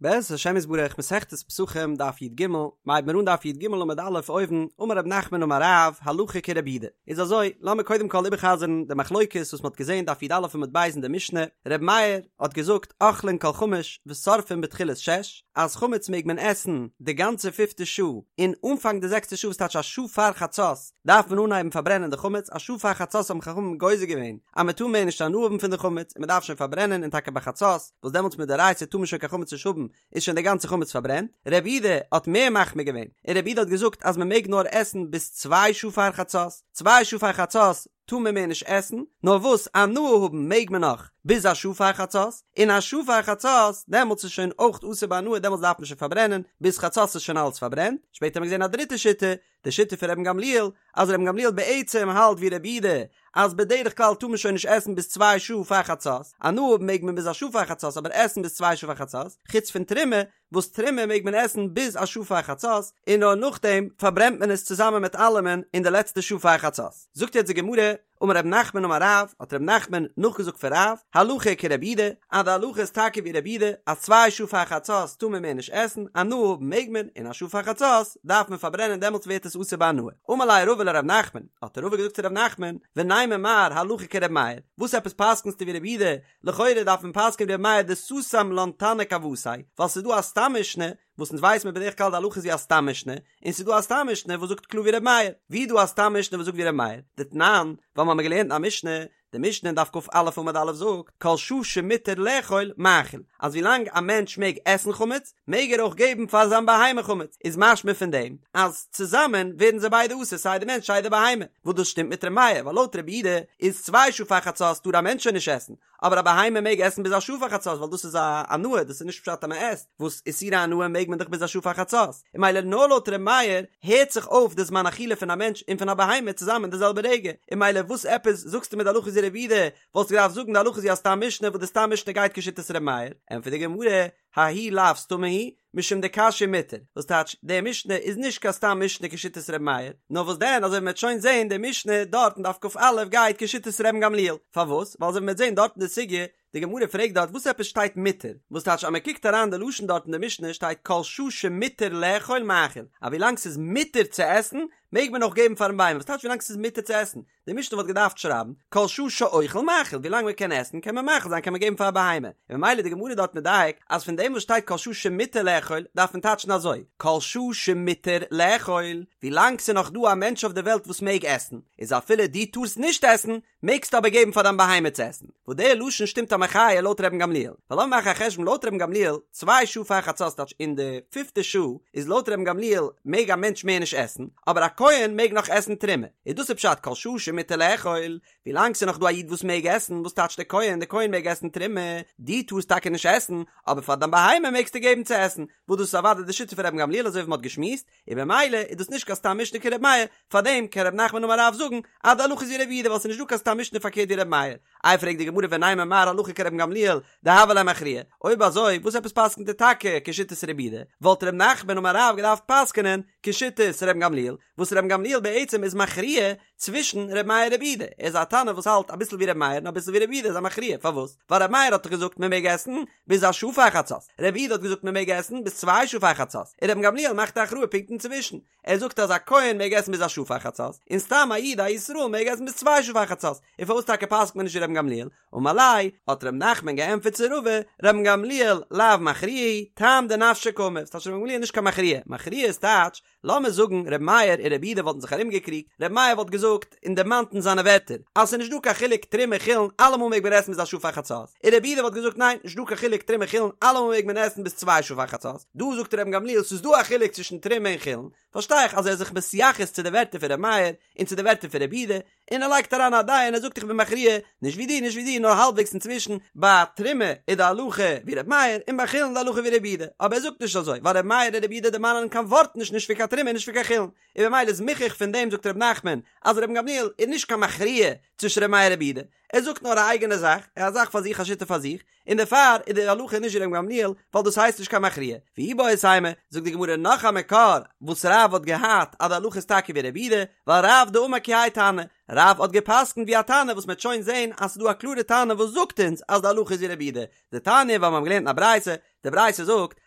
בעזרת השם יתברך מסכת פסחים דף י"ג, מ'הייבט מיר אן דף י"ג עמוד א' אויבן, אמר רב נחמן אמר רב, הלכה כרבי יהודה. איז אזוי, לאמיר קודם כל איבערחזר'ן די מחלוקת וואס מ'האט געזען דף י"א עמוד ב' אין די משנה, ר' מאיר האט געזאגט אוכלין כל חמש ושורפין בתחילת שש, אז חמץ מעג מען עסן די גאנצע פיפטע שעה, און אנפאנג די זעקסטע שעה וואס טייטש א שעה פאר חצות דארף מען אנהייבן פארברענען די חמץ, א שעה פאר חצות האבן חכמים גוזר געווען אז מען טאר מער נישט הנאה האבן פון די חמץ און מען דארף שוין פארברענען און טאקע ביי חצות וואס דעמאלטס מדאורייתא טאר מען שוין קיין חמץ נישט האבן איז שוין די גאנצע חמץ פארברענט, רבי יהודה האט מער מחמיר געווען און רבי יהודה האט געזאגט אז מען מעג נאר עסן ביז צוויי שעה פאר חצות, צוויי שעה פאר חצות טאר מען מער נישט עסן, נאר וואס הנאה האבן מעג מען נאך ביז א שעה פאר חצות, און א שעה פאר חצות דעמאלטס איז שוין אויך אסור בהנאה דעמאלטס דארף מען שוין פארברענען, ביז חצות איז שוין אלעס פארברענט, שפעטער האט מען געזען א דריטע שיטה, די שיטה פון רבן גמליאל, אז רבן גמליאל בעצם האלט ווי רבי יהודה אז בדרך כלל טאר מען שוין נישט עסן ביז צוויי שעה פאר חצות, הנאה האבן מעג מען ביז א שעה פאר חצות אבער עסן ביז צוויי שעה פאר חצות, חוץ פון תרומה, וואס תרומה מעג מען עסן ביז א שעה פאר חצות, און נאר נאכדעם פארברענט מען עס צוזאמען מיט אלעמען אין די לעצטע שעה פאר חצות. זאגט יעצט די גמרא, אמר רב נחמן אמר רב, האט רב נחמן נאכגעזאגט פון רב, הלכה כרבי יהודה, אז די הלכה איז טאקע ווי רבי יהודה, אז צוויי שעה פאר חצות טאר מען מער נישט עסן, הנאה האבן מעג מען, און א שעה פאר חצות דארף מען פארברענען דעמאלטס ווערט עס אסור בהנאה. אמר ליה רבא לרב נחמן, האט רבא געזאגט צו רב נחמן, ונימא מר הלכה כרבי מאיר, וואס עפעס פסק'נסטו ווי רבי יהודה, לכאורה דארף מען פסק'ען ווי רבי מאיר דסתם לן תנא כוותיה, ווייל ס'איז דא א סתם משנה וואס אונז ווייס מיר בדרך כלל די הלכה איז ווי א סתם משנה, און ס'איז דא א סתם משנה וואס זאגט קלאר ווי ר' מאיר, ווי איז דא א סתם משנה וואס זאגט ווי ר' מאיר? דתנן, ווייל מ'האמיר געלערנט אין א משנה, די משנה אין דף כ"א עמוד א' זאגט, כל שעה שמותר לאכול מאכיל, אז ווילאנג א מענטש מעג עסן חמץ, מעג ער אויך געבן פאר זיין בהמה חמץ, איז משמע פון דעם אז צוזאמען ווערן זיי ביידע אסור סיי די מענטש סיי די בהמה, וואס דאס שטימט מיט ר' מאיר, ווייל לויט רבי יהודה איז צוויי שעה פאר חצות טאר א מענטש שוין נישט עסן, אבער א בהמה מעג עסן ביז א שעה פאר חצות ווייל דאס איז א הנאה דאס איז נישט פשט אז מען עסט, וואס איסורי הנאה מעג מען דאך ביז א שעה פאר חצות, און ממילא נאר לויט ר' מאיר הערט זיך אויף די זמן אכילה פון א מענטש און פון א בהמה צוזאמען די זעלבע רגע, און ממילא וואס עפעס זאגסטו מיר די הלכה איז ווי רבי יהודה, וואלסטו געדארפט זאגן די הלכה איז ווי א סתם משנה וואס די סתם משנה גייט כשיטת ר' מאיר, ענטפערט די גמרא, ההיא לאו סתמא היא, משום דקשיא מותר, וואס טייטש, די משנה איז נישט קיין סתם משנה כשיטת ר' מאיר, נאר וואס דען אזוי ווי מ'וועט שוין זעהן די משנה דארט אין דף כ"א גייט כשיטת רבן גמליאל, פארוואס? ווייל אזוי ווי מ'וועט זעהן דארט אין די סוגיא, די גמרא פרעגט דארט וואס עפעס שטייט מותר, וואס טייטש אז מ'קוקט אריין די לשון דארט אין די משנה שטייט כל שעה שמותר לאכול מאכיל, אז ווילאנג ס'איז מותר צו עסן מעג מען אויך געבן פארן בהמה, וואס טייטש ווילאנג ס'איז מותר צו עסן? די משנה וואלט געדארפט שרייבן, כל שעה שאוכל מאכיל, ווילאנג מען קען עסן קען מען מאכיל זיין קען מען געבן פאר א בהמה, און ממילא די גמרא דארט מדייק אז פון דעם וואס שטייט כל שעה שמותר לאכול דארף מען טייטשן אזוי, כל שעה שמותר לאכול, ווילאנג ס'איז נאך דא א מענטש אויף די וועלט וואס מעג עסן, איז אפילו דו טארסט נישט עסן, מעגסטו אבער געבן פאר דיין בהמה צו עסן. וואס דער לשון שטימט א מחיה לויט רבן גמליאל, ווייל לאמיר מאכן א חשבון לויט רבן גמליאל, צוויי שעה פאר חצות טייטש אין די פיפטע שעה איז לויט רבן גמליאל מעג א מענטש מער נישט עסן, אבער א כהן מעג נאך עסן תרומה, איז דאס איז פשט כל שעה שמותר לאכול, ווילאנג ס'איז נאך דא א איד וואס מעג עסן, וואס טייטש דער כהן, דער כהן מעג עסן תרומה, דו טארסט טאקע נישט עסן, אבער פאר דיין בהמה מעגסטו געבן צו עסן, וואס דאס איז אוודאי די שיטה פון רבן גמליאל אזוי ווי מ'האט געשמועסט, און במילא איז דאס נישט קיין סתם משנה כר' מאיר, פארדעם קען ר' נחמן אמר רב זאגן אז די הלכה איז ווי ר' יהודה ווייל ס'איז נישט דא קיין סתם משנה פארקערט ווי ר' מאיר. איי פרעגט די גמרא ונימא מר הלכה כרבן גמליאל דהוה ליה מכריע, אויב אזוי וואס עפעס פסק'נט ער טאקע כשיטת ר' יהודה, וואלט ר' נחמן אמר רב געדארפט פסק'נען כשיטת רבן גמליאל, וואס רבן גמליאל בעצם איז מכריע צווישן ר' מאיר ר' יהודה, ער איז א תנא וואס האלט אביסל ווי ר' מאיר און אביסל ווי ר' יהודה איז א מכריע, פארוואס? ווייל ר' מאיר האט דאך געזאגט מען מעג עסן ביז א שעה פאר חצות, ר' יהודה האט געזאגט מען מעג עסן ביז צוויי שעה פאר חצות, און רבן גמליאל מאכט א הכרעה פונקט אינצווישן, ער זאגט אז א כהן מעג עסן ביז א שעה פאר חצות, און סתם א איד א ישראל מעג עסן ביז צוויי שעה פאר חצות, און פארוואס טאקע פסק'ט מען נישט ווי רבן גמליאל? אמר ליה, האט ר' נחמן געענטפערט צו רבא, רבן גמליאל לאו מכריע הוא, טעם דנפשיה קאמר, ס'טייטש רבן גמליאל איז נישט קיין מכריע, מכריע איז טייטש לאמיר זאגן ר' מאיר און ר' יהודה וואלטן זיך ארומגעקריגט, ר' מאיר וואלט געזאגט און דערמאנט אין זיינע ווערטער אז ס'איז נישט דא קיין חילוק תרומה חולין אלעמאל מעג מען עסן ביז א שעה פאר חצות, און ר' יהודה וואלט געזאגט ניין נישט דא קיין חילוק תרומה חולין אלעמאל מעג מען עסן ביז צוויי שעה פאר חצות, דא זאגט רבן גמליאל ס'איז דא א חילוק צווישן תרומה און חולין, פארשטיי איך אז ער איז זיך מתייחס צו די ווערטער פון ר' מאיר און צו די ווערטער פון ר' יהודה, און ער לייגט אריין א דעה און ער זאגט איך בין מכריע, נישט ווי דיר נישט ווי דיר נאר האלבוועגס אינצווישן, ביי תרומה איז די הלכה ווי ר' מאיר און ביי חולין די הלכה ווי ר' יהודה, אבער ער זאגט נישט אזוי ווייל ר' מאיר און ר' יהודה דערמאנען קיין ווארט נישט נישט פון קיין תרומה נישט פון קיין חולין, און במילא איז מוכח פון דעם זאגט ר' נחמן אז רבן גמליאל איז נישט קיין מכריע צווישן ר' מאיר און ר' יהודה, ער זאגט נאר א אייגענע זאך, א זאך פאר זיך א שיטה פאר זיך, און דערפאר איז די הלכה נישט ווי רבן גמליאל, ווייל דאס הייסט נישט קיין מכריע. ואיבעית אימא, זאגט די גמרא נאך א מקור וואס רב האט געהאט אז די הלכה איז טאקע ווי רבי יהודה, ווייל רב דאמר כי האי תנא, רב האט גע'פסק'נט ווי א תנא וואס מ'עט שוין זען אז ס'איז דא א קלארע תנא וואס זאגט אונז אז די הלכה איז ווי רבי יהודה, דתניא ווייל מ'האבן געלערנט אין א ברייתא, די ברייתא זאגט.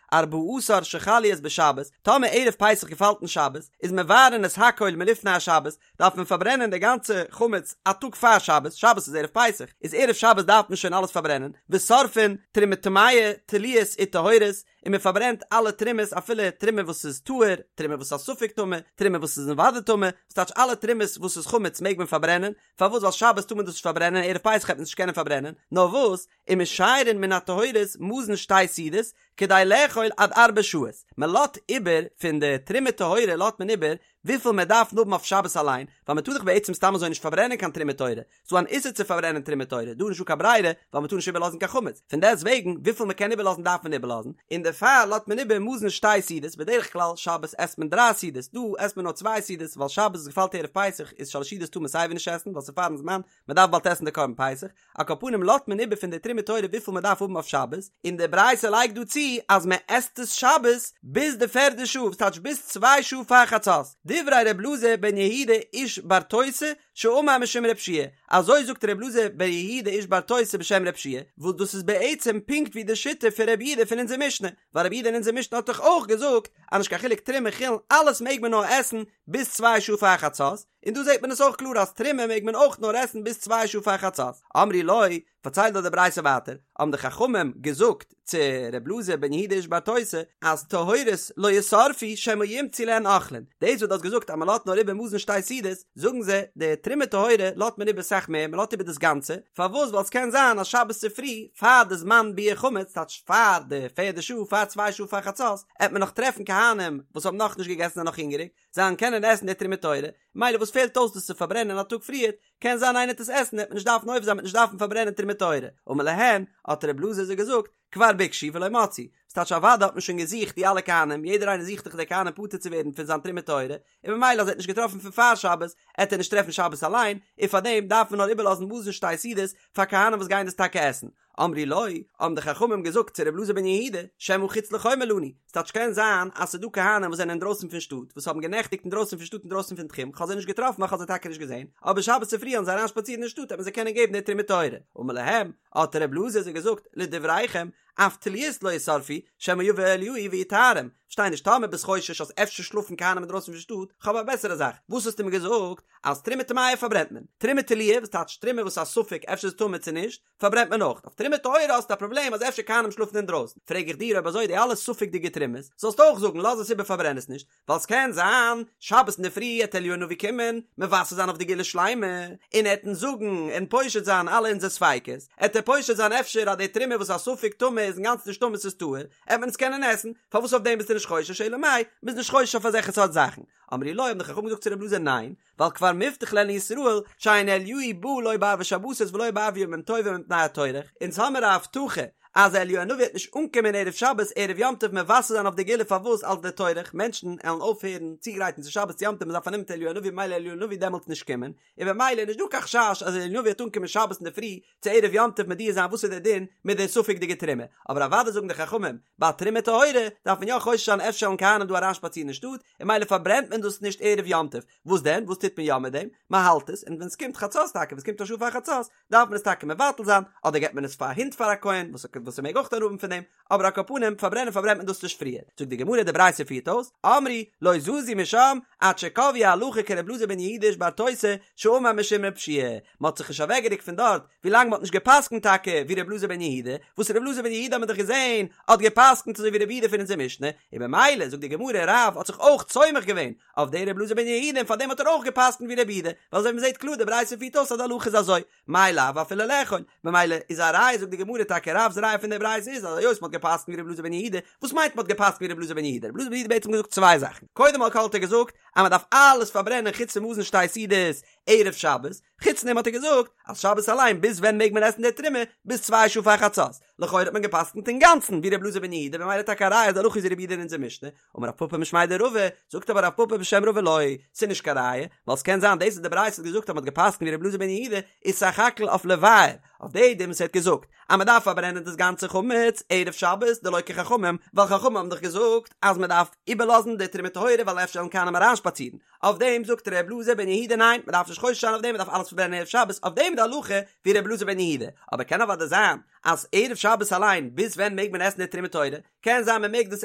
ארבעה עשר שחל להיות בשבת, טאמער ערב פסח געפאלט אין שבת, איז מבערין את הכל מלפני השבת, דארף מען פארברענען די גאנצע חמץ א טאג פאר שבת, שבת איז ערב פסח, איז ערב שבת דארף מען שוין אלעס פארברענען, ושורפין תרומה טמאה, תלויות וטהורות, און מען פארברענט אלע תרומות אפילו תרומה וואס איז טהור, תרומה וואס איז א ספק טמא, תרומה וואס איז אוודאי טמא, וואס טייטש אלע תרומות וואס איז חמץ מעג מען פארברענען, פארוואס ווייל שבת טאר מען דאס נישט פארברענען ערב פסח העט מען עס נישט קענען פארברענען, נאר וואס, ומשיירין מן הטהורות מזון שתי סעודות כדי לאכול עד ארבע שעות, מען לאט איבער פון די תרומה טהורה לאט מען איבער וויפיל מען דארף האבן אויף שבת אליין, ווייל מען טאר דאך בעצם סתם אזוי נישט פארברענען קיין תרומה טהורה, ס'דא אן איסור צו פארברענען תרומה טהורה, דא איז נישטא קיין ברירה, ווייל מען טאר נישט איבערלאזן קיין חמץ, פון דעסט וועגן וויפיל מען קען איבערלאזן דארף מען איבערלאזן, און דערפאר לאזט מען איבער מזון שתי סעודות, בדרך כלל שבת עסט מען דריי סעודות, דא עסט מען נאר צוויי סעודות, ווייל שבת וואס געפאלט ערב פסח איז שלש סעודות טאר מען סייווי נישט עסן, ווייל ס'איז פארן זמן, מען דארף באלד עסן די קרבן פסח, על כל פנים לאזט מען איבער פון די תרומה טהורה וויפיל מען דארף האבן אויף שבת, און די ברייתא לייגט דא צו אז מען עסט עס שבת ביז די פערדע שעה, וואס טייטש ביז צוויי שעה פאר חצות, דברי ר' אלעזר בן יהודה איש ברתותא שאמר משום ר' יהושע, אזוי זאגט ר' אלעזר בן יהודה איש ברתותא בשם ר' יהושע, וואס דאס איז בעצם פונקט ווי די שיטה פון ר' יהודה פון אונזער משנה, ווייל ר' יהודה אין אונזער משנה האט דאך אויך געזאגט אז נישט קיין חילוק תרומה חולין אלעס מעג מען נאר עסן ביז צוויי שעה פאר חצות, און דא זעט מען עס אויך קלאר אז תרומה מעג מען אויך נאר עסן ביז צוויי שעה פאר חצות. אמרו לו, פארציילט דא די ברייתא ווייטער, האבן די חכמים געזאגט צו ר' אלעזר בן יהודה איש ברתותא אז טהורות לא ישרפו שמא ימצאו להן אוכלין, דאס וואס דו האסט געזאגט אז מען לאזט נאר איבער מזון שתי סעודות, זאגן זיי, די תרומה טהורה לאזט מען איבער סאך מער, מען לאזט איבער דאס גאנצע, פארוואס? ווייל עס קען זיין אז שבת צופרי פאר די זמן ביעור חמץ, טייטש פאר די פערדע שעה, פאר צוויי שעה פאר חצות, עט מען נאך טרעפן כהנים וואס האבן נאכנישט געגעסן זענען נאך הונגעריג, זיי וועלן קענען עסן די תרומה טהורה, מילא וואס פעלט אויס דאס צו פארברענען א טאג פריערט, קען זיין איינער וועט עס עסן וועט מען נישט דארפן עובר זיין מ'וועט נישט דארפן פארברענען תרומה טהורה, אמר להן, האט ר' אלעזר זיי געזאגט, כבר ביקשו ולא מצאו, וואס טייטש אוודאי האט מען שוין געזוכט די אלע כהנים, יעדער איינער זוכט דאך די כהנים פטור צו ווערן פון זיין תרומה טהורה, און ממילא אז ער האט נישט געטראפן פון פאר שבת, עט ער נישט טרעפן שבת אליין, און פארדעם דארף מען נאר איבערלאזן מזון שתי סעודות פאר כהנים וואס גייען דאס טאקע עסן. אמרו לו, האבן די חכמים געזאגט צו ר' אלעזר בן יהודה, שמא חוץ לחומה לנו, ס'טייטש קען זיין אז ס'איז דא כהנים וואס זענען אינדרויסן פון שטאט, וואס האבן גענעכטיגט אינדרויסן פון שטאט אינדרויסן פון תחום, כ'האב זיי נישט געטראפן ווייל כ'האב זיי טאקע נישט געזען, אבער שבת צופרי וועלן זיי אריינשפאצירן אין שטאט וועט מען זיי קענען געבן די תרומה טהורה. אמר להם, האט ר' אלעזר זיי געזאגט, לדבריכם, אף תלויות לא ישרפו, שמא יבא אליהו ויטהרם, כ'פארשטיי נישט טאמער ביסט חושש אז אפשר שלאפן כהנים אינדרויסן פון שטאט, כ'האב א בעסערע זאך, וואס האסטו מיר געזאגט אז תרומה טמאה פארברענט מען, תרומה תלויה, וואס טייטש תרומה וואס איז א ספק אפשר איז טמא צו נישט, פארברענט מען אויך, אויף תרומה טהורה האסטו א פראבלעם אז אפשר כהנים שלאפן אינדרויסן, פרעג איך דיר אויב אזוי די אלע ספק'דיגע תרומות, זאלסטו אויך זאגן לאז עס איבער פארברען עס נישט, ווייל ס'קען זיין שבת אינדערפרי עט אליהו הנביא קומען מבשר זיין אויף די גאולה שלימה, און ער עט אונז זאגן און פושט זיין אלע אונזער ספיקות, עט ער פושט זיין אפשר אז די תרומה וואס איז א ספק טמא איז אינגאנצן נישט טמא ס'איז טהור, עט מען עס קענען עסן, פארוואס אויף דעם ביסטו נישט חושש אלא מאי, מ'איז נישט חושש אויף אזעלכע סארט זאכן, אמרו לו האבן די חכמים געזאגט צו ר' אלעזר ניין, ווייל כבר מובטח להן לישראל שאין אליהו בא לא בערבי שבתות ולא בערבי ימים טובים מפני הטורח, אונז האמיר א הבטחה אז אליהו הנביא וועט נישט אנקומען ערב שבת ערב יום טוב מבשר זיין אויף די גאולה פארוואס אלס די טורח מענטשן עלן אויפהערן צוגרייטן צו שבת צו יום טוב מ'איז פארנומען מיט אליהו הנביא ממילא אליהו הנביא דעמאלטס נישט קומען און במילא איז נישט דא קיין חשש אז אליהו הנביא וועט אנקומען שבת אינדערפרי צו ערב יום טוב מודיע זיין וואס איז דער דין מיט די ספק'דיגע תרומה, אבער אוודאי זאגן די חכמים, ביי תרומה טהורה דארף מען יא חושש זיין אפשר וועלן כהנים דא אריינשפאצירן אין שטאט, און ממילא פארברענט מען דאס נישט ערב יום טוב, וואס דען, וואס טוט מען יא מיט דעם? מען האלט עס, און ווען עס קומט חצות טאקע, ווען עס קומט א שעה פאר חצות, דארף מען עס טאקע מבטל זיין, אדער געבט מען עס פאר א הונט פאר א כהן, וואס וואס ער מעג אויך הנאה האבן פון דעם, אבער על כל פנים, פארברענען פארברענט מען דאס נישט פריער. זאגט די גמרא, די ברייתא פירט אויס, אמרו, לא זזו משם, עד שקבעו הלכה כר' אלעזר בן יהודה איש ברתותא, שאמר משום ר' יהושע מען האט זיך נישט אוועקגערוקט פון דארט, ווילאנג מען האט נישט גע'פסק'נט טאקע ווי ר' אלעזר בן יהודה, וואס ר' אלעזר בן יהודה האט מען דאך געזען האט גע'פסק'נט אזוי ווי ר' יהודה פון אונזער משנה, און במילא זאגט די גמרא רב האט זיך אויך סומך געווען אויף די ר' אלעזר בן יהודה און פארדעם האט ער אויך גע'פסק'נט ווי ר' יהודה, ווייל אזוי ווי מען זעט קלאר די ברייתא פירט אויס אז די הלכה איז אזוי, מאי לאו אפילו לאכול, ממילא איז א ראיה זאגט די גמרא טאקע רב'ס ראיה פון די ברייתא איז אז היות מען האט גע'פסק'נט ווי ר' אלעזר בן יהודה, וואס מיינט מען האט גע'פסק'נט ווי ר' אלעזר בן יהודה? ר' אלעזר בן יהודה בעצם געזאגט צוויי זאכן, קודם כל האט ער געזאגט אז מען דארף אלעס פארברענען חוץ פון מזון שתי סעודות ערב שבת, חוץ דעם האט ער געזאגט אז שבת אליין ביז ווען מעג מען עסן די תרומה ביז צוויי שעה פאר חצות, לכאורה האט מען גע'פסק'נט אינגאנצן ווי ר' אלעזר בן יהודה במילא טאקע א ראיה אז די הלכה איז ווי ר' יהודה אין אונזער משנה, אמר רב פפא משמיה דרבא, זאגט אבער רב פפא בשם רבא לא, ס'איז נישט קיין ראיה, ווייל ס'קען זיין דאס וואס די ברייתא האט געזאגט אז מ'האט גע'פסק'נט ווי ר' אלעזר בן יהודה איז סך הכל אויף לבער, אויף די דין וואס ער האט געזאגט אז מ'דארף פארברענען דאס גאנצע חמץ ערב שבת דלא כחכמים, ווייל חכמים האבן דאך געזאגט אז מ'דארף איבערלאזן די תרומה טהורה ווייל אפשר וועלן כהנים אריינשפאצירן, אויף דעם זאגט ר' אלעזר בן יהודה ניין מ'דארף נישט. נישט חושש זיין אויף דעם מען דארף אלעס פארברענען ערב שבת, אויף דעם איז די הלכה ווי ר' אלעזר בן יהודה, אבער קען אוודאי זיין אז ערב שבת אליין ביז ווען מעג מען עסן די תרומה טהורה, קען זיין מען מעג דאס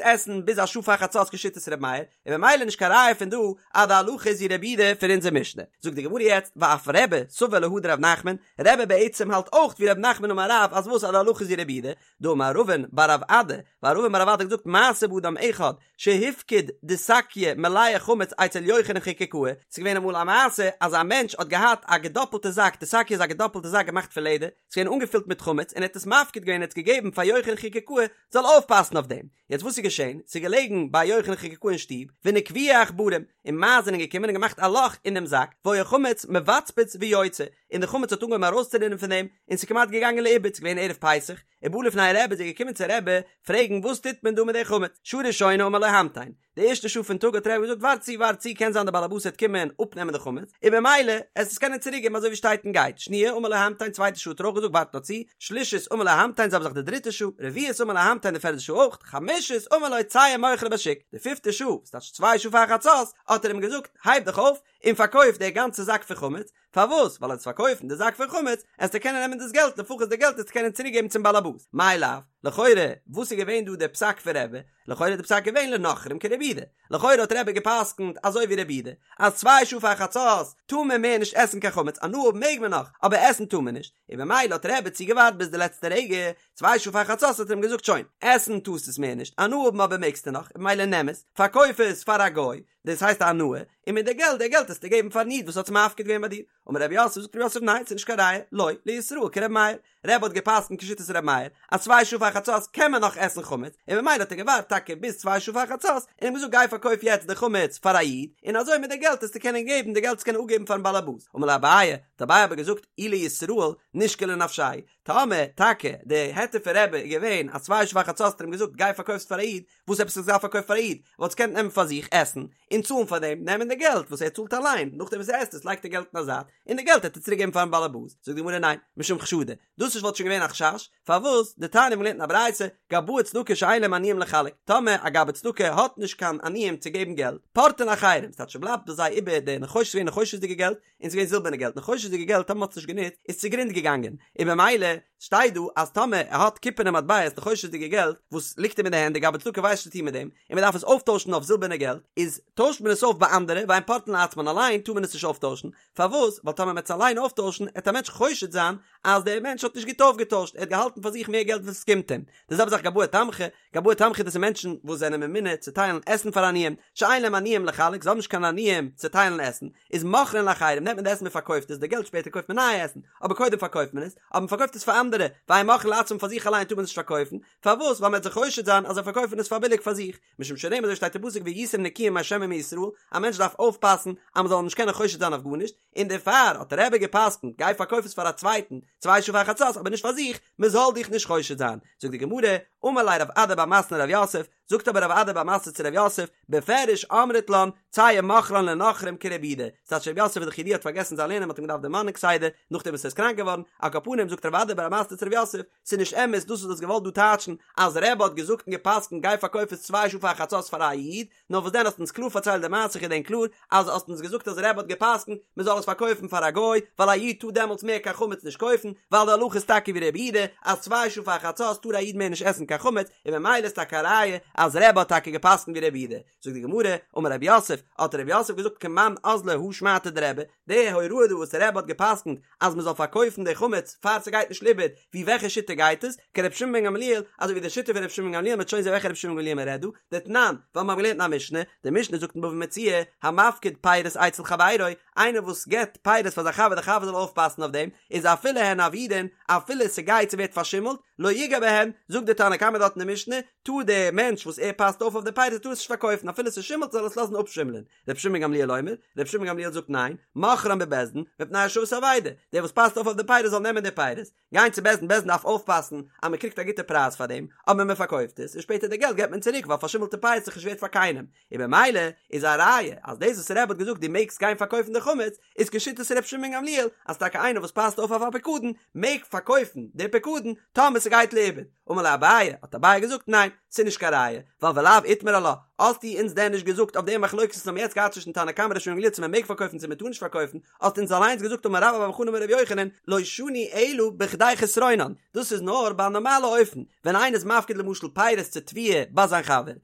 עסן ביז א שעה פאר חצות כשיטת ר' מאיר, און ממילא נישט קיין ראיה פון דא אז די הלכה איז ווי ר' יהודה פון אונזער משנה. זאגט די גמרא יעצט ואף רבי סבר להא דרב נחמן, רבי בעצם האלט אויך ווי רב נחמן אמר רב אז וואס אז די הלכה איז ווי ר' יהודה, דאמר רבין בר רב אדא, ווייל רבין בר רב אדא האט געזאגט מעשה באדם אחד שהפקיד דיסקיא מלאה חמץ אצל יוחנן חקוקאה, ס'איז געווען אמאל א מעשה אז א מענטש האט געהאט א געדאפלטע זאק, דיסקיא איז א געדאפלטע זאק געמאכט פון לעדער, ס'איז געווען אנגעפילט מיט חמץ און ער האט עס מפקיד געווען ער האט עס געגעבן פאר יוחנן חקוקאה זאל אויפפאסן אויף דעם, יעצט וואס איז געשען, ס'איז געלעגן ביי יוחנן חקוקאה אין שטוב, ונקבוהו עכברים, און מייז זענען געקומען און געמאכט א לאך אין דעם זאק, והיה חמץ מבצבץ ויוצא, און די חמץ האט אנגעהויבן ארויסצורינען פון דעם, און ס'איז כמעט געגאנגען לאיבוד, ס'איז געווען ערב פסח, ובא לפני רבי איז ער געקומען צו רבי פרעגן וואס טוט מען דא מיט די חמץ, שעה ראשונה אמר לו המתן, די ערשטע שעה פון טאג האט רבי געזאגט ווארט צו ווארט צו קען זיין די בעל הבית וועט קומען אפנעמען די חמץ, און במילא עסט עס קענען צוריק געבן אזוי ווי שטייט און גייט, שניה אמר לו המתן צווייטע שעה האט ער אויך געזאגט ווארט נאר צו, שלישית אמר לו המתן זעלבע זאך די דריטע שעה, רביעית אמר לו המתן די פערדע שעה אויך, חמישית אמר לו צא ומוכרה בשוק, די פיפטע שעה, ס'טייטש צוויי שעה פאר חצות, האט ער אים געזאגט הייב דיך אויף און פארקויף די גאנצע זאק פון חמץ, פארוואס? ווייל עסט פארקויפן די זאק פון חמץ, עסטו קענען נעמען דאס געלט, לפחות די געלט עסטו קענען צוריק געבן צום באלעבאס. מאי לאו? לכאורה, וואס איז געווען דא דער פסק פון רבי? לכאורה איז די פסק געווען לנכרים כרבי יהודה. לכאורה האט רבי געפסקנט אזוי ווי רבי יהודה, אז צוויי שעה פאר חצות טאר מען מער נישט עסן קיין חמץ, הנאה האבן מעג מען נאך, אבער עסן טאר מען נישט. און במילא האט רבי צוגעווארט ביז די לעצטע רגע, צוויי שעה פאר חצות האט ער אים געזאגט שוין, עסן טארסט עס מער נישט, הנאה האבן אבער מעגסטו נאך, און במילא נעם עס, פארקויף עס פאר א גוי, דאס הייסט א הנאה, און מיט די געלט, די געלט עסטו געבן פארן איד וואס האט עס מפקיד געווען ביי דיר. אמר רב יוסף, זאגט רב יוסף ניין, ס'איז נישט קיין ראיה, לא, לישראל כר' מאיר. רבי האט געפסקנט כשיטת ר' מאיר, אז צוויי שעה פאר חצות קען מען נאך עסן חמץ, און ממילא האט ער געווארט טאקע ביז צוויי שעה פאר חצות, און אים געזאגט גיי פארקויף יעצט די חמץ פאר א איד, און אזוי מיט די געלט עסטו קענען געבן די געלט עסטו קענען אפגעבן פארן בעל הבית. אמר ליה אביי, האט אביי אבער געזאגט, אי לישראל נישקול לנפשיה, טאמער טאקע די היתר פון רבי איז געווען אז צוויי שעה פאר חצות האט ער אים געזאגט גיי פארקויף עס פאר א איד, וואס עפעס האט ער געדארפט פארקויפן פאר א איד? וואלט עס געקענט נעמען פאר זיך עסן און צאלן פאר דעם, נעמען די געלט וואס ער צאלט אליין, נאכדעם וואס ער עסט עס לייגט ער געלט אין א זייט, און די געלט העט ער צוריק געבן פארן באלעבאס, זאגט די גמרא ניין, משום חשדא, דאס נישט וואלט שוין געווען א חשש, פארוואס? דתניא מ'האט געלערנט אין א ברייתא, גבאי צדקה שאין להם עניים לחלק, טאמער א גבאי צדקה האט נישט קיין עניים צו געבן געלט, פורטין לאחרים, ס'טייטש ס'בלייבט ביי זיי איבער די נחושת, ס'געווען נחושת'דיגע געלט, און ס'געווען זילבערנע געלט, נחושת'דיגע געלט טאמער מ'האט עס נישט גענוצט איז צוגרונד געגאנגען, און במילא שטייט דא אז טאמער ער האט קופערנע מטבעות נחושת'דיגע געלט וואס ליגט אים אין די הענט די גבאי צדקה ווייסט נישט צו טון מיט דעם, און מ'דארף עס אויפטוישן אויף זילבערנע געלט, איז טוישט מען עס אויף ביי אנדערע ואין פורטין לעצמן אליין טאר מען עס נישט אויפטוישן, פארוואס? ווייל טאמער מ'עט עס אליין אויפטוישן עט א מענטש חושד זיין אז דער מענטש האט נישט גוט אויפגעטוישט ער האט געהאלטן פאר זיך מער געלט וואס עס קומט אים, די זעלבע זאך גבאי תמחוי, גבאי תמחוי דאס איז מענטשן וואס זענען ממונה צו טיילן עסן פאר עניים, שאין להם עניים לחלק זיי האבן נישט קיין עניים צו טיילן עסן, איז מוכרין לאחרים נעמט מען די עסן מען פארקויפט עס, די געלט שפעטער קויפט מען נייע עסן, אבער קודם פארקויפט מען עס, אבער מען פארקויפט עס פאר אנדערע, ואין מוכרין לעצמם פאר זיך אליין טאר מען עס נישט פארקויפן, פארוואס? ווייל מען וועט זיך חושד זיין אז זיי פארקויפן עס פאר ביליג פאר זיך, משום שנאמר אזוי שטייט אין פסוק והייתם נקיים מה' ומישראל, א מענטש דארף אויפפאסן אז מען זאל אים נישט קענען חושד זיין אויף גארנישט, און דערפאר האט רבי געפסקנט גיי פארקויף עס פאר א צווייטן צוויי שעה פאר חצות אבער נישט פאר זיך, מען זאל דיך נישט חושד זיין. זאגט די גמרא, אמר ליה רב אדא בר מתנה לרב יוסף, זאגט אבער רב אדא בר מתנה צו רב יוסף, בפירוש אמרת לן, צא ומוכרן לנכרים כרבי יהודה, ס'טייטש רב יוסף איז דאך ידוע האט פארגעסן זיין לערנען מ'האט אים געדארפט דערמאנען כסדר, נאכדעם וואס ער איז קראנק געווארן, על כל פנים זאגט רב אדא בר מתנה צו רב יוסף, ס'איז נישט אמת דאס וואס דו האסט געוואלט דא טייטשן אז רבי האט געזאגט און גע'פסק'נט גיי פארקויף עס צוויי שעה פאר חצות פאר א איד, נאר וואס דען האסט אונז קלאר פארציילט די מעשה כ'געדענק קלאר אז האסט אונז געזאגט אז רבי האט גע'פסק'נט מען זאל עס פארקויפן פאר א גוי ווייל א איד טאר דעמאלטס מער קיין חמץ נישט קויפן ווייל די הלכה איז טאקע ווי רבי יהודה אז צוויי שעה פאר חצות טאר א איד מער נישט עסן קיין חמץ און ממילא איז טאקע א ראיה אז רבי האט טאקע גע'פסק'נט ווי רבי יהודה זאגט די גמרא אמר רב יוסף האט רב יוסף געזאגט כמאן אזלא הא שמעתא דרבי די הוראה דא וואס רבי האט גע'פסק'נט אז מען זאל פארקויפן די חמץ פאר ס'גייט נישט לאיבוד, ווי וועלכע שיטה גייט עס? כרבי שמעון בן גמליאל, אזוי ווי די שיטה פון רבי שמעון בן גמליאל, מ'וועט שוין זען וועלכע רבי שמעון בן גמליאל מען רעדט דא, דתנן, ווייל מיר האבן געלערנט אין א משנה, די משנה זאגט אין בבא מציעא, המפקיד פירות אצל חברו, איינער וואס געבט פירות פאר זיין חבר די חבר זאל אויפפאסן אויף דעם, איז אפילו הן אבודין, אפילו ס'גייט ס'ווערט פארשימלט, לא יגע בהן, זאגט די תנא קמא דארט אין די משנה, טאר דער מענטש וואס ער פאסט אויף אויף די פירות טאר עס נישט פארקויפן אפילו ס'שימלט זאל עס לאזן אפשימלען, רבי שמעון בן גמליאל אומר, רבי שמעון בן גמליאל זאגט ניין, מוכרן בבית דין, מפני השבת אבידה, דער וואס פאסט אויף אויף די פירות זאל נעמען די פירות, גיין צו בית דין, בית דין דארף אויפפאסן אז מען קריגט א גוטע פרייז פאר דעם, אבער מען פארקויפט עס, און שפעטער די געלט געבט מען צוריק ווייל פארשימלטע פירות איז נישט ווערט פאר קיינעם, און במילא איז א ראיה אז דאס וואס רבי האט געזאגט דו מעגסט גיין פארקויפן די חמץ, איז כשיטת רבי שמעון בן גמליאל, אז טאקע איינער וואס פאסט אויף אויף א פיקדון, מעג פארקויפן די פיקדון, טאמער ס'גייט לאיבוד. אמר ליה אביי, האט אביי געזאגט, ניין, ס'איז נישט קיין ראיה, ווייל ולאו איתמר עלה, האסטו אונז דען נישט געזאגט אויף די מחלוקת וואס מ'האט יעצט געהאט צווישן תנא קמא ר' שמעון גמליאל צו מ'מעג פארקויפן צו מ'טאר נישט פארקויפן, האסט אונז אליינס געזאגט אמר רבה בר בר חנה אמר ר' יוחנן, לא שנו אלא בכדי חסרונן, דאס איז נאר ביי א נארמאלע אופן, ווען איינער איז מפקיד למשל פירות צו תבואה ביי זיין חבר,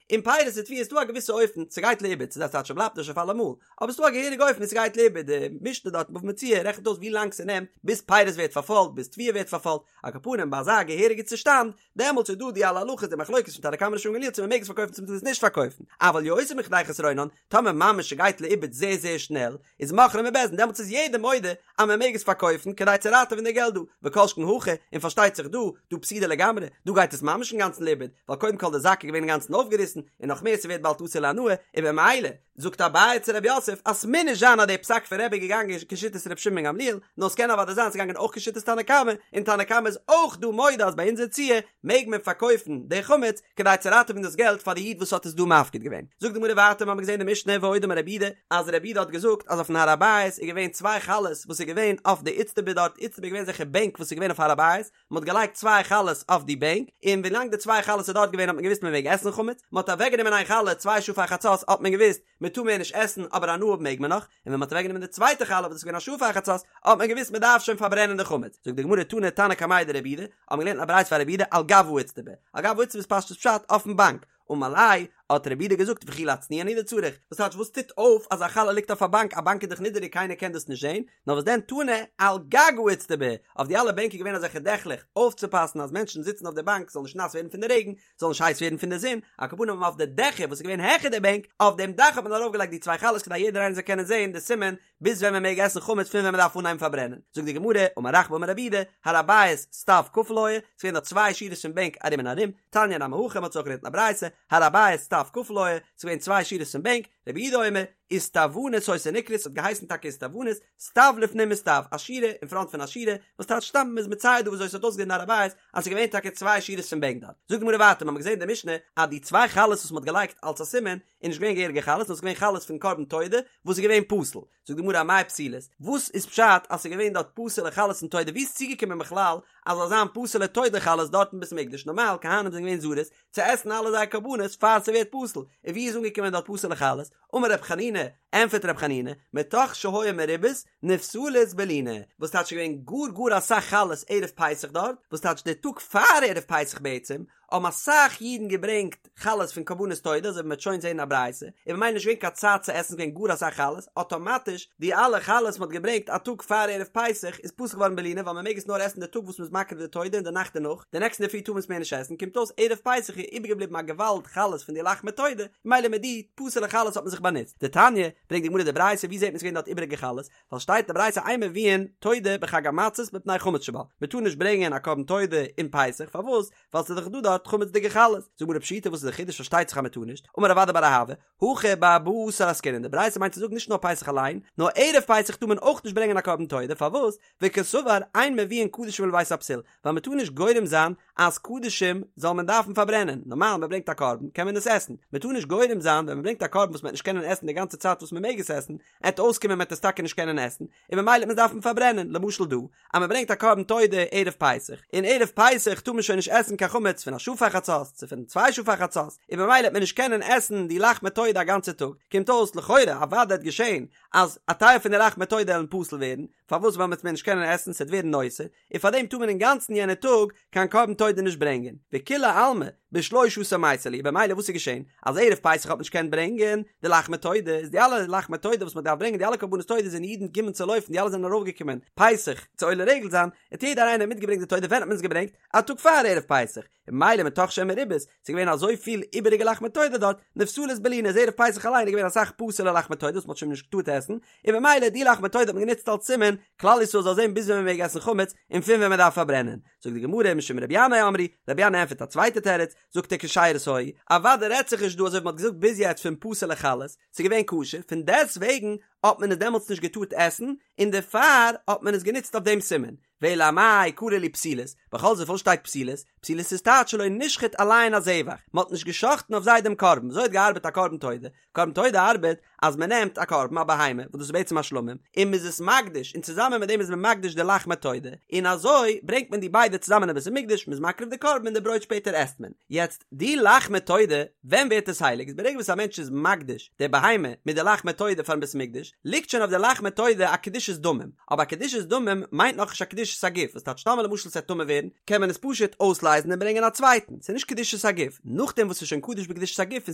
און פירות צו תבואה איז דא א געוויסע אופן, ס'גייט לאיבוד, ס'איז א צייט ס'בלייבט נישט אויף אלעמאל, אבער ס'דא א געהעריגע אופן ווי ס'גייט לאיבוד, די משנה דארט אין בבא מציעא רעכנט אויס ווי לאנג ס'נעמט ביז פירות ווערט פארפוילט, ביז תבואה ווערט פארפוילט, על כל פנים ביי אזא געהעריגע צושטאנד, דעמאלטס איז דא די אלע הלכות די מחלוקת פון תנא קמא ר' שמעון גמליאל צו מ'מעג עס פארקויפן צו מ'טאר עס נישט פארקויפן, אבל יותר מכדי חסרונן, טאמער ממש ס'גייט לאיבוד זייער זייער שנעל, איז מוכרן בבית דין, דעמאלטס איז יעדער מודה אז מ'מעג עס פארקויפן כדי צו ראטעווען די געלט דא, וכל שכן הכא, און פארשטייט זיך דא, דא פסידא לגמרי, דא גייט עס ממש אינגאנצן לאיבוד, ווייל קודם כל די זאק איז געווען אינגאנצן אויפגעריסן, און נאך מער ס'ווערט באלד אסור להנאה, און במילא, זאגט אביי צו רב יוסף אז ס'מוז נישט זיין אז די פסק פון רבי איז געגאנגען כשיטת ר' שמעון בן גמליאל, נאר ס'קען אוודאי זיין ס'איז געגאנגען אויך כשיטת תנא קמא, און תנא קמא איז אויך דא מודה אז ביי אונזער ציור מעג מען פארקויפן די חמץ כדי צו ראטעווען דאס געלט פאר די איד וואס האט עס דא מפקיד געווען. זאגט די גמרא ווייטער מ'האמיר געזען די משנה ועוד אמר רבי יהודה אז רבי יהודה האט געזאגט אז אויפן הר הבית איז געווען צוויי חלות וואס איז געווען אויף די איצטבא דארט, איצטבא איז געווען אזעלכע בענק וואס איז געווען אויף הר הבית, מען האט געלייגט צוויי חלות אויף די בענק, און ווילאנג די צוויי חלות איז דארט געווען האט מען געוואוסט מען מעג עסן חמץ, מען האט אוועקגענומען איין חלה צוויי שעה פאר חצות האט מען געוואוסט מען טאר מער נישט עסן אבער הנאה האבן מעג מען נאך, און ווען מען האט אוועקגענומען די צווייטע חלה וואס איז געווען א שעה פאר חצות האט מען געוואוסט מען דארף שוין פארברענען די חמץ, זאגט די גמרא תני תנא קמיה דרבי יהודה, האט מען געלערנט א ברייתא פאר רבי יהודה על גב האיצטבא, על גב האיצטבא איז פשטות פשט אויפן באנק, אמר ליה, האט רבי יהודה געזאגט וכי להצניע הוא דצריך, וואס טייטש וואס טוט אויף אז א חלה ליגט אויף א באנק, א באנק איז דאך נידעריג קיינער קען דאס נישט זען, נאר וואס דען תני על גג האיצטבא, אויף די אלע בענק איז געווען אזעלכע דעכלעך, אויפצופאסן אז מענטשן זיצן אויף די באנק זאל נישט נאס ווערן פון די רעגן, זאל נישט הייס ווערן פון די זון, על כל פנים אויף די דעכער וואס איז געווען העכער די בענק, אויף דעם דאך האט מען ארויפגעלייגט די צוויי חלות כדי יעדער איינער זאל קענען זען די סימן ביז ווען מען מעג עסן חמץ פון ווען מען דארף אנהייבן פארברענען, זאגט די גמרא, אמר רחבה אמר רב יהודה, הר הבית סטיו כפול היה, ס'איז געווען דארט צוויי שורות פון בענק ארום און ארום, תניא נמי הכי, מ'האט אזוי אויך געלערנט אין א ברייתא, הר הבית סטיו כפול היה, ס'איז געווען צוויי שורות פון בענק, רבי יהודה אומר, איסטוונית היתה נקראת, ס'האט געהייסן טאקע איסטוונית, סטיו לפנים מסטיו, א שורה אין פראנט פון א שורה, וואס טייטש סתם מ'איז מצייר דא וויאזוי ס'האט אויסגעזען אין הר הבית, אז ס'איז געווען טאקע צוויי שורות פון בענק דארט. זאגט די גמרא ווייטער, מ'האמיר געזען אין די משנה אז די צוויי חלות וואס מ'האט געלייגט אלס א סימן, איז נישט געווען געהעריגע חלות נאר ס'איז געווען חלות פון קרבן תודה וואס איז געווען פסול, זאגט די גמרא אמאי פסולות, וואס איז פשט אז ס'איז געווען דארט פסול'ע חלות פון תודה, ווי איז צוגעקומען בכלל אז זאל זיין פסול'ע תודה חלות דארט אין בית המקדש, נארמאל כהנים זענען געווען זריז צו עסן אלע זייער קרבנות פאר ס'ווערט פסול, און ווי איז אנגעקומען דארט פסול'ע חלות, אמר רב חנינא, ענפערט רב חנינא, מתוך שהיו מרובות נפסלות בלינה, וואס טייטש ס'איז געווען גאר גאר אסאך חלות ערב פסח דארט, וואס טייטש די טאג פאר ערב פסח בעצם, האבן אסאך אידן געברענגט חלות פון קרבנות תודה, אזוי ווי מ'וועט שוין זעהן אין א ברייתא, און ממילא נישט געווען קיין צייט צו עסן, ס'איז געווען גאר אסאך חלות, אטאמאטיש די אלע חלות מ'האט געברענגט א טאג פאר ערב פסח איז פסול געווארן בלינה ווייל מ'מעג עס נאר עסן די טאג וואס מ'איז מקריב די תודה און די נאכט דערנאך, די נעקסטן אינדערפרי טאר מען עס מער נישט עסן, קומט אויס ערב פסח איז איבערגעבליבן א געוואלד חלות פון די לחמי תודה, ממילא מיט די פסול'ע חלות האט מען זיך באנוצט. דתניא, ברענגט די גמרא די ברייתא, ווי זעט מען ס'איז געווען דארט איבעריגע חלות? ווייל שטייט אין די ברייתא אין מביאין תודה בחג המצות מפני חמץ שבה, מען טאר נישט ברענגען א קרבן תודה אין פסח, פארוואס? ווייל ס'איז דאך דא דארט חמצ'דיגע חלות. זאגט די גמרא פשיטא וואס איז די חידוש פארשטייט זיך אז מען טאר נישט, אמר רב אדא בר אהבה, הכא בארבעה עשר עסקינן, די ברייתא מיינט צו זאגן נישט נאר פסח אליין, נאר ערב פסח טאר מען אויך נישט ברענגען א קרבן תודה, פארוואס? וקסבר אין מביאין קדשים לבית הפסול, ווייל מען טאר נישט גורם זיין אז קדשים זאל מען דארפן פארברענען, נארמאל מען ברענגט א קרבן קען מען עס עסן, מען טאר נישט גורם זיין ווען מען ברענגט א קרבן וואס מען וועט נישט קענען עסן די גאנצע צייט וואס מען מעג עס עסן, עט אויסקומען מען וועט עס טאקע נישט קענען עסן, און ממילא וועט מען עס דארפן פארברענען, למשל דא, אז מען ברענגט א קרבן תודה ערב פסח, און ערב פסח טאר מען שוין נישט עסן קיין חמץ פון א שעה פאר חצות, צו פון צוויי שעה פאר חצות, און ממילא וועט מען נישט קענען עסן די לחמי תודה א גאנצע טאג, קומט אויס לכאורה אוודאי וועט געשען אז א טייל פון די לחמי תודה עלן פסול ווערן, פארוואס ווייל מען וועט מער נישט קענען עסן ס'עט ווערן נותר, און פאר דעם טאר מען אינגאנצן יענע טאג קיין קרבן תודה נישט ברענגען, וכולי עלמא בשלשה עשר מייתי להו, במילא וואס איז געשען? אז ערב פסח האט מען נישט געקענט ברענגען די לחמי תודה, איז די אלע לחמי תודה וואס מען דארף ברענגען די אלע קרבנות תודה זענען אידן געקומען צו לויפן די אלע זענען ארויפגעקומען פסח צו עולה רגל זיין, האט יעדער איינער מיטגעברענגט די תודה, ווען האט מען עס געברענגט? א טאג פאר ערב פסח, און ממילא מתוך שהן מרובות, ס'איז געווען אזויפיל איבעריגע לחמי תודה דארט, נפסלות בלינה איז ערב פסח אליין איז געווען אסאך פסול'ע לחמי תודה וואס מ'האט שוין נישט געטארט עסן, און במילא די לחמי תודה האט מען גענוצט אלס סימן, כלל ישראל זאל זען ביז ווען מ'מעג עסן חמץ, און פון ווען מ'דארף פארברענען. זאגט די גמרא משום רבי ינאי אמרו, רבי ינאי ענטפערט א צווייטע תירוץ, זאגט ער כשרות היו, אוודאי רעדט זיך נישט דא אזוי ווי מ'האט געזאגט ביז יעצט פון פסול'ע חלות, ס'איז געווען כשר, פון דעסט וועגן. האט מען עס דעמאלטס נישט געטארט עסן, און דערפאר האט מען עס גענוצט אויף דעם סימן. ואלא אמאי קרי להו פתילות, בכל זאת וואס שטייט פתילות? פתילות איז טייטש שלא נשחט עליהן הזבח, מען האט נישט גע'שחט'ן אויף זיי דעם קרבן, וויאזוי האט געארבעט א קרבן תודה? קרבן תודה ארבעט אז מען נעמט א קרבן, א בהמה, וואס דאס איז בעצם א שלמים, און מען איז עס מקדיש, און צוזאמען מיט דעם איז מען מקדיש די לחמי תודה, און אזוי ברענגט מען די ביידע צוזאמען אין בית המקדש, מען איז מקריב די קרבן און די ברויט שפעטער עסט מען. יעצט, די לחמי תודה, ווען ווערט עס הייליג? איז ברגע וואס א מענטש איז מקדיש די בהמה מיט די לחמי תודה פארן בית המקדש, ליגט שוין אויף די לחמי תודה א קדושת דמים, אבער א קדושת דמים מיינט נאכנישט א קדושת הגוף, וואס טייטש טאמער למשל ס'עט טמא ווערן, קען מען עס פשוט אויסלייזן און ברענגען א צווייטן, ס'איז נישט קדושת הגוף, נאכדעם וואס ס'איז שוין קדוש בקדושת הגוף און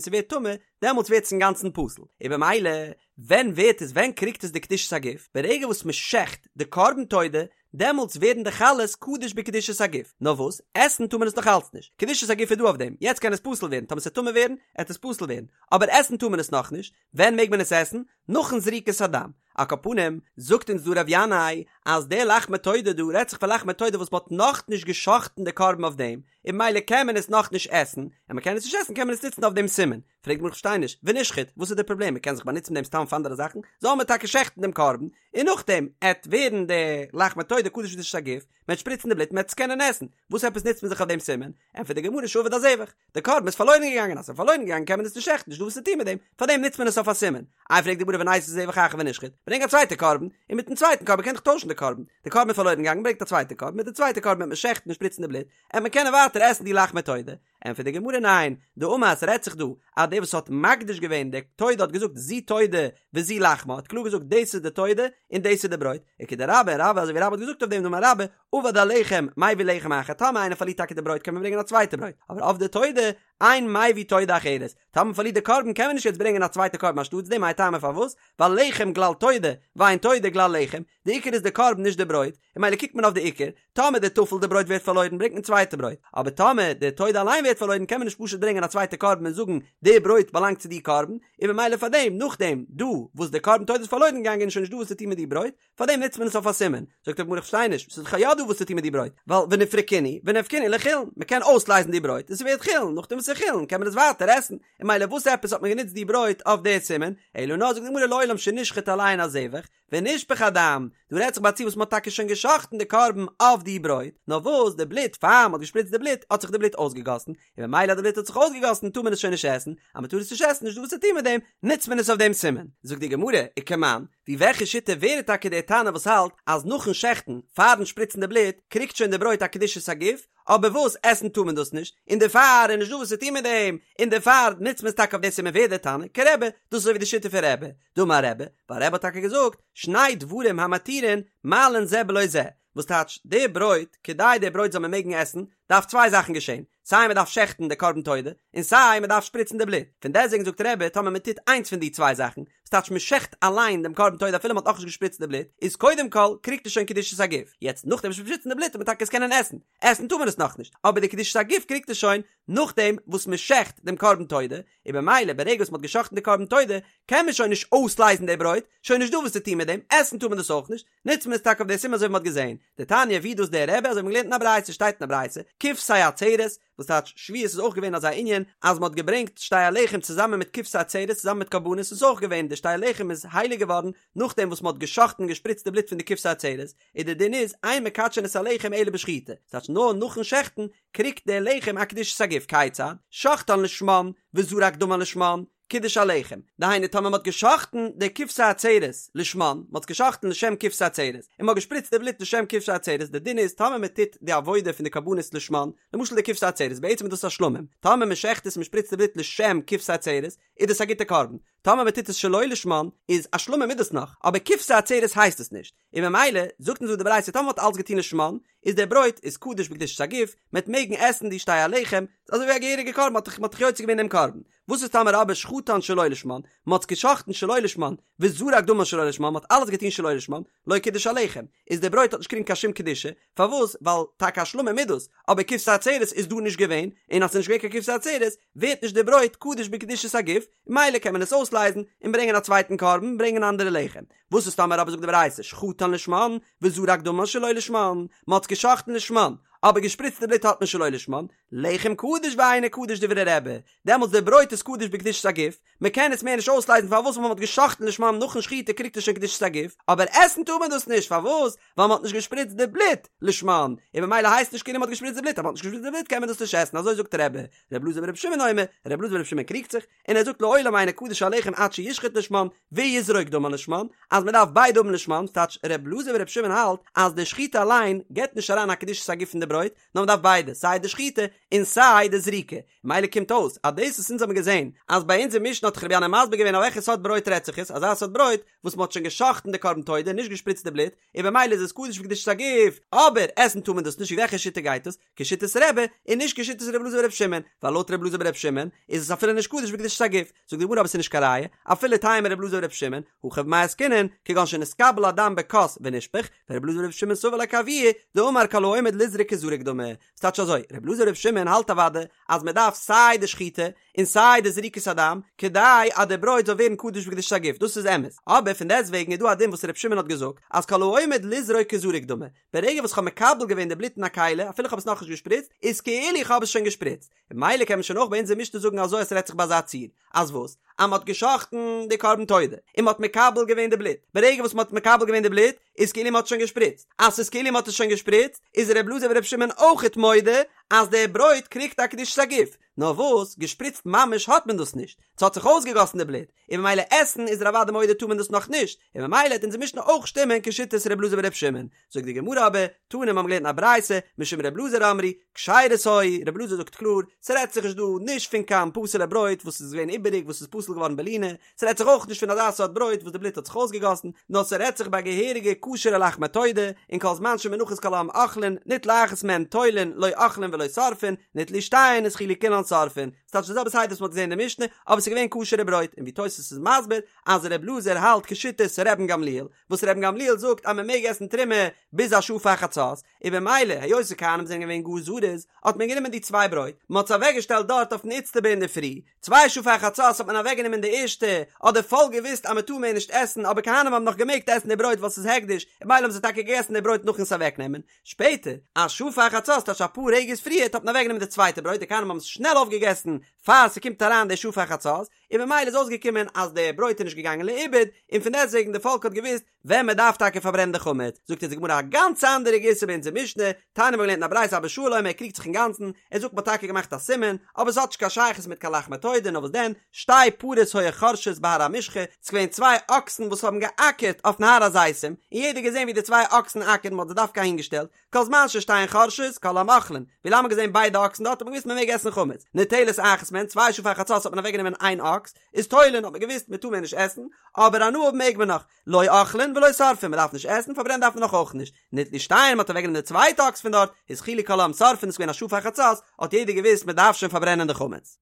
ס'ווערט טמא, דעמאלטס ווערט עס אינגאנצן פסול, און במילא ווען ווערט עס ווען קריגט עס די קדושת הגוף? ברגע וואס מ'שעכט די קרבן תודה, דעמאלטס ווערן די חלות קדוש בקדושת הגוף, נאר וואס, עסן טאר מען עס נאך אלץ נישט, קדושת הגוף איז דא אויף דעם, יעצט קען עס פסול ווערן, טאמער ס'עט טמא ווערן, עט עס פסול ווערן, אבער עסן טאר מען עס נאכנישט, ווען מעג מען עס עסן? נאכן זריקת הדם. על כל פנים, זאגט אונז דא ר' ינאי, אז די לחמי תודה דא רעדט זיך פון לחמי תודה וואס מ'האט נאכנישט גע'שחט'ן די קרבן אויף דעם, און ממילא קען מען עס נאכנישט עסן, און מ'קען עס נישט עסן קען מען עס נוצן אויף דעם סימן. פרעגט די גמרא כ'פארשטיי נישט, ונשחוט, וואס איז די פראבלעם? מ'קען זיך באנוצן מיט דעם סתם פאר אנדערע זאכן, זאל מען טאקע שעכטן דעם קרבן, און נאכדעם עט ווערן די לחמי תודה קדוש בקדושת הגוף, מ'עט שפריצן די בלוט מ'עט עס קענען עסן, וואס עפעס נוצט מען זיך אויף דעם סימן? ענטפערט די גמרא שאבד הזבח, די קרבן איז פארלוירן געגאנגען, אז ס'איז פארלוירן געגאנגען קען מען עס נישט שעכטן, נישטא וואס צו טון מיט דעם, פארדעם נוצט מען עס אויף א סימן. איי פרעגט די גמרא וניתי זבח אחר ונשחוט, ברענג א צווייטע קרבן, און מיטן צווייטן קרבן קען איך טוישן די קרבן, די קרבן איז פארלוירן געגאנגען ברענגט א צווייטע קרבן, מיט די צווייטע קרבן וועט מען שעכטן און שפריצן די בלוט, עט מען קענען ווייטער עסן די לחמי תודה. ענטפערט די גמרא ניין, דאמר ס'רעדט זיך דא אז דער וואס האט מקדיש געווען די תודה האט געזאגט זו תודה וזו לחמה האט קלאר געזאגט דאס איז די תודה און דאס איז די ברויט, וכדרבה רבה אזוי ווי רבה האט געזאגט אויף דעם דאמר רבה אבד הלחם מביא לחם אחר טאמער איינער פארלירט טאקע די ברויט קען מען ברענגען א צווייטע ברויט אבער אבדה תודה אין מביא תודה אחרת טאמער מען פארלירט די קרבן קען מען נישט יעצט ברענגען א צווייטע קרבן אנשטאטס דעם מאי טעמא פארוואס ווייל לחם גלל תודה ואין תודה גלל לחם די עיקר איז די קרבן נישט די ברויט און ממילא קוקט מען אויף די עיקר טאמער די טפל די ברויט ווערט פארלוירן ברענגט מען צווייטע ברויט, אבער טאמער די תודה אליין ווערט פארלוירן קען מען נישט פשוט ברענגען א צווייטע קרבן און זאגן די ברויט באלאנגט צו די קרבן, און ממילא פארדעם נאכדעם דא וואס די קרבן תודה איז פארלוירן געגאנגען איז שוין נישט דא וואס צו טון מיט די ברויט, פארדעם נוצט מען עס אויף א סימן. זאגט די גמרא איך פארשטיי נישט, ס'איז דאך יא דא וואס צו טון מיט די ברויט, ווייל ונפרקינהו ונפקינהו לחולין, מ'קען אויסלייזן די ברויט און ס'ווערט חולין, נאכדעם וואס ס'איז חולין קען מען עס ווייטער עסן, און ממילא וואס עפעס האט מען גענוצט די ברויט אויף די סימן, אלא נאר זאגט די גמרא לעולם שנשחט עליהן הזבח, ונשפך הדם, דא רעדט זיך ביי א ציור וואס מ'האט טאקע שוין גע'שחט'ן די קרבן אויף די ברויט, נאר וואס די בלוט, פאר מ'האט געשפריצט די בלוט, האט זיך די בלוט אויסגעגאסן, און ממילא אז די בלוט האט זיך אויסגעגאסן טאר מען עס שוין נישט עסן, אז מ'טאר עס נישט עסן נישט דא וואס צו טון מיט דעם, נוצט מען עס אויף דעם סימן. זאגט די גמרא, וכמאן, ווי וועלכע שיטה ווער איז טאקע דער תנא וואס האלט אז נאכן שעכטן, פארן שפריצן די בלוט, קריגט שוין די ברויט א קדושת הגוף, אבער וואס, עסן טאר מען דאס נישט, און דערפאר איז נישט דא וואס צו טון מיט דעם, און דערפאר נוצט מען עס טאקע אויף דעם סימן ווער דער תנא? כרבי, דאס איז אזוי ווי די שיטה פון רבי, דאמר רבי, ווייל רבי האט טאקע געזאגט, שני דברים המתירין מעלין זה בלא זה, וואס טייטש, די ברויט, כדי די ברויט זאל מען מעגן עסן, דארף צוויי זאכן געשען, סיי מען דארף שעכטן די קרבן תודה, און סיי מען דארף שפריצן די בלוט, פון דעסטוועגן זאגט רבי, טאמער מען טוט איינס פון די צוויי זאכן, וואס טייטש מען שעכט אליין דעם קרבן תודה אפילו מען האט נאכנישט געשפריצט די בלוט, איז קודם כל קריגט עס שוין קדושת הגוף, יעצט נאכדעם וואס שפריצן די בלוט וועט מען טאקע עס קענען עסן, עסן טאר מען עס נאכנישט, אבער די קדושת הגוף קריגט עס שוין נאכדעם וואס מען שעכט דעם קרבן תודה, און במילא ברגע וואס מען האט געשאכטן די קרבן תודה קען מען שוין נישט אויסלייזן די ברויט, שוין נישט דא וואס צו טון מיט דעם, עסן טאר מען דאס אויך נישט, נוצט מען עס טאקע אויף די סימן אזוי ווי מען האט געזען. דתניא ווי דאס דער רבי אזוי ווי מען האט געלערנט אין א ברייתא שטייט אין א ברייתא, כבשי עצרת, וואס טייטש שבועות איז אויך געווען אזא ענין אז מען האט געברענגט שתי הלחם צוזאמען מיט כבשי עצרת צוזאמען מיט קרבנות איז אויך געווען די שתי הלחם איז הייליג געווארן נאכדעם וואס מען האט געשאכטן און געשפריצט די בלוט פון די כבשי עצרת, און די דין איז אין מקדשין את הלחם אלא בשחיטה, ס'טייטש נאר נאכן שעכטן קריגט דער לחם א קדושת הגוף, כיצד? שחטן לשמן וזרק דמן לשמן, קידש הלחם, דהיינו טאמער מ'האט געשאכטן די כבשי עצרת לשמן, מ'האט עס געשאכטן לשם כבשי עצרת, און מ'האט געשפריצט די בלוט לשם כבשי עצרת, די דין איז טאמער מ'טוט די עבודה פון די קרבנות לשמן, למשל די כבשי עצרת, בעצם איז דאס א שלמים, טאמער מ'שעכט עס און מ'שפריצט די בלוט לשם כבשי עצרת, איז דאס א גוטע קרבן, טאמער מ'טוט עס שלא לשמן, איז א שלמים איז דאס נאך, אבער כבשי עצרת הייסט עס נישט. און ממילא זאגט אונז דא די ברייתא טאמער מ'האט אלץ געטון לשמן, איז דער ברויט איז קדוש בקדושת הגוף, מ'עט מעגן עסן די שתי הלחם, ס'איז אזוי ווי א געהעריגע קרבן, מ'האט דאך מ'האט דאך יוצא געווען דעם קרבן. וואס איז טאמער אבער שחטן שלא לשמן, מ'האט עס געשחט'ן שלא לשמן, וזרק דמן שלא לשמן, מ'האט אלעס געטון שלא לשמן, לא קידש הלחם, איז דער ברויט האט נישט געקריגן קיין שום קדושה, פארוואס? ווייל טאקע א שלמים איז דאס, אבער כבשי עצרת איז דא נישט געווען, און אז ס'איז נישט געווען קיין כבשי עצרת, ווערט נישט דער ברויט קדוש בקדושת הגוף, ממילא קען מען עס אויסלייזן, און ברענגען א צווייטן קרבן, ברענגען אנדערע לחם. וואס איז טאמער אבער זאגט די ברייתא שחטן לשמן וזרק דמן שלא לשמן, מען האט עס געשחט'ן לשמן, אבער געשפריצט די בלוט האט מען שלא לשמן, לחם קדוש ואינו קדוש דברי רבי, דעמאלטס די ברויט איז קדוש בקדושת הגוף, מען קען עס מער נישט אויסלייזן פארוואס ווייל מען האט גע'שחט'ן לשמן נאכן שחיטה קריגט עס שוין קדושת הגוף, אבער עסן טאר מען דאס נישט פארוואס ווייל מען האט נישט געשפריצט די בלוט לשמן, און ממילא הייסט נישט כאילו מען האט געשפריצט די בלוט, אז מען האט נישט געשפריצט די בלוט קען מען דאס נישט עסן אזוי זאגט רבי, ר' אלעזר בר' שמעון אומר, ר' אלעזר בר' שמעון קריגט זיך, און ער זאגט לעולם אינו קדוש הלחם עד שישחט לשמן ויזרוק דמן לשמן, אז מען דארף ביידע האבן לשמן, ס'טייטש ר' אלעזר בר' שמעון האלט אז די שחיטה אליין געבט נישט אריין א קדושת הגוף אין די ברויט, נאר מען דארף ביידע, סיי די שחיטה און סיי די זריקה, מילא קומט אויס אז דאס וואס אונז האבן געזען אז ביי אונזער משנה האט דאך רבי ינאי מסביר געווען אויף וועלכע סארט ברויט רעדט זיך עס, אזא סארט ברויט וואס מען האט שוין גע'שחט'ן די קרבן תודה און נישט געשפריצט די בלוט, און במילא איז עס קדוש בקדושת הגוף, אבער עסן טאר מען דאס נישט ווי וועלכע שיטה גייט עס? כשיטת רבי און נישט כשיטת רבי אלעזר ברבי שמעון, ווייל לויט רבי אלעזר ברבי שמעון איז עס אפילו נישט קדוש בקדושת הגוף, זאגט די גמרא אבער עס איז נישט קיין ראיה, אפילו תימא רבי אלעזר ברבי שמעון, הכא במאי עסקינן, כגון שנתקבל הדם בכוס ונשפך, ורבי אלעזר ברבי שמעון סבר לה כאבוה, דאמר כל העומד לזרוק כזרוק דמי. ס'טייטש אזוי, רבי אלעזר ברבי שמעון האלט אוודאי אז מען דארף סיי די שחיטה און סיי די זריקת הדם כדי אז די ברויט זאל ווערן קדוש בקדושת הגוף, דאס איז אמת, אבער פון דעסט וועגן איז דא א דין וואס רבי שמעון האט געזאגט אז כל העומד לזרוק כזרוק דמי, ברגע וואס כ'האב מקבל געווען די בלוט אין א כלי, אפילו כ'האב עס נאכנישט געשפריצט, איז כאילו איך האב עס שוין געשפריצט. און ממילא קען מען שוין אויך ביי אונזער משנה זאגן אזוי אז ס'רעדט זיך ביי אזא ציור, אז וואס? אז מ'האט גע'שחט'ן די קרבן תודה, און מ'האט מקבל געווען די בלוט. ברגע וואס מ'האט מקבל געווען די בלוט, איז כאילו מ'האט שוין געשפריצט. אז ס'איז כאילו מ'האט עס שוין געשפריצט, איז ר' אלעזר בר' שמעון אויכעט מודה אז די ברויט קריגט א קדושת הגוף. נאר וואס, געשפריצט ממש האט מען דאס נישט. ס'האט זיך אויסגעגאסן די בלוט, און ממילא עסן איז ער אוודאי מודה טאר מען דאס נאך נישט, און ממילא העט אונזער משנה אויך שטימען כשיטת ר' אלעזר בר' שמעון. זאגט די גמרא אבער, תנא מיר האבן געלערנט אין א ברייתא, משום ר' אלעזר אמרו, כשרות היו, ר' אלעזר זאגט קלאר, ס'רעדט זיך נישט דא נישט פון קיין פסול'ע ברויט וואס איז געווען איבעריג וואס איז פסול געווארן בלינה, ס'רעדט זיך אויך נישט פון אזא סארט ברויט וואס די בלוט האט זיך אויסגעגאסן, נאר ס'רעדט זיך ביי געהעריגע כשר'ע לחמי תודה, און כל זמן שמונחות כל העם אוכלין, ניטלה אחת מהן תולין, לא אוכלין ולא שורפין, ניטלו שתיהן התחילו כולן שורפין. ס'טייטש די זעלבע סדר וואס מ'האט געזען אין די משנה, אבער ס'איז געווען כשר'ע ברויט, און ווי תוס' איז מסביר אז ר' אלעזר האלט כשיטת רבן גמליאל, וואס רבן גמליאל זאגט אז מ'מעג עסן תרומה ביז א שעה פאר חצות, און במילא היות די כהנים זענען געווען גאר זריז, האט מען גענומען די צוויי ברויט, מ'האט עס אוועקגעשטעלט דארט אויפן איצטבא אינדערפרי, צוויי שעה פאר חצות האט מען אוועקגענומען די ערשטע, האט די פאלק געוואוסט אז מ'טאר מער נישט עסן, אבער כהנים האבן נאך געמעגט עסן די ברויט ווייל ס'איז הקדש, און במילא האבן זיי טאקע געגעסן די ברויט נאכן עס אוועקנעמען, שפעטער, א שעה פאר חצות, טייטש אפאר רגעס פריערט, האט מען אוועקגענומען די צווייטע ברויט, די כהנים האבן עס שנעל אויפגעגעסן פאר ס'קומט אריין די שעה פאר חצות, און ממילא איז אויסגעקומען אז די ברויט איז נישט געגאנגען לאיבוד, און פון דעסטוועגן די פאלק האט געוואוסט ווען מען דארף טאקע פארברענען די חמץ. זאגט אונז די גמרא א גאנץ אנדערע גירסא ביי אונזער משנה, תניא מ'האט געלערנט אין א ברייתא אבא שאול אומר ער קריגט זיך אינגאנצן, ער זאגט מ'האט טאקע געמאכט א סימן, אבער ס'האט נישט קיין שייכות מיט קיין לחמי תודה, נאר וואס דען, שתי פרות היו חורשות בהר המשחה, ס'איז געווען צוויי אקסן וואס האבן געאקערט אויפן הר הזיתים, און יעדער האט געזען ווי די צוויי אקסן אקערן, מ'האט זיי דווקא אהינגעשטעלט, כל זמן ששתיהן חורשות, כל העם אוכלין, ווי לאנג מ'האט געזען ביידע אקסן דארט האט מען געוואוסט מ'מעג עסן חמץ, ניטלת אחת מהן, צוויי שעה פאר חצות האט מען אוועקגענומען איין אקס, איז תולין האט מען געוואוסט מ'טאר מער נישט עסן, אבער הנאה האבן מעג מען נאך, לא אוכלין ולא שורפין, מ'דארף נישט עסן, פארברענען דארף מען נאך אויך נישט, ניטלו שתיהן, מ'האט אוועקגענומען די צווייטע אקס פון דארט, התחילו כל העם שורפין, איז געווען א שעה פאר חצות, האט יעדער געוואוסט מ'דארף שוין פארברענען די חמץ.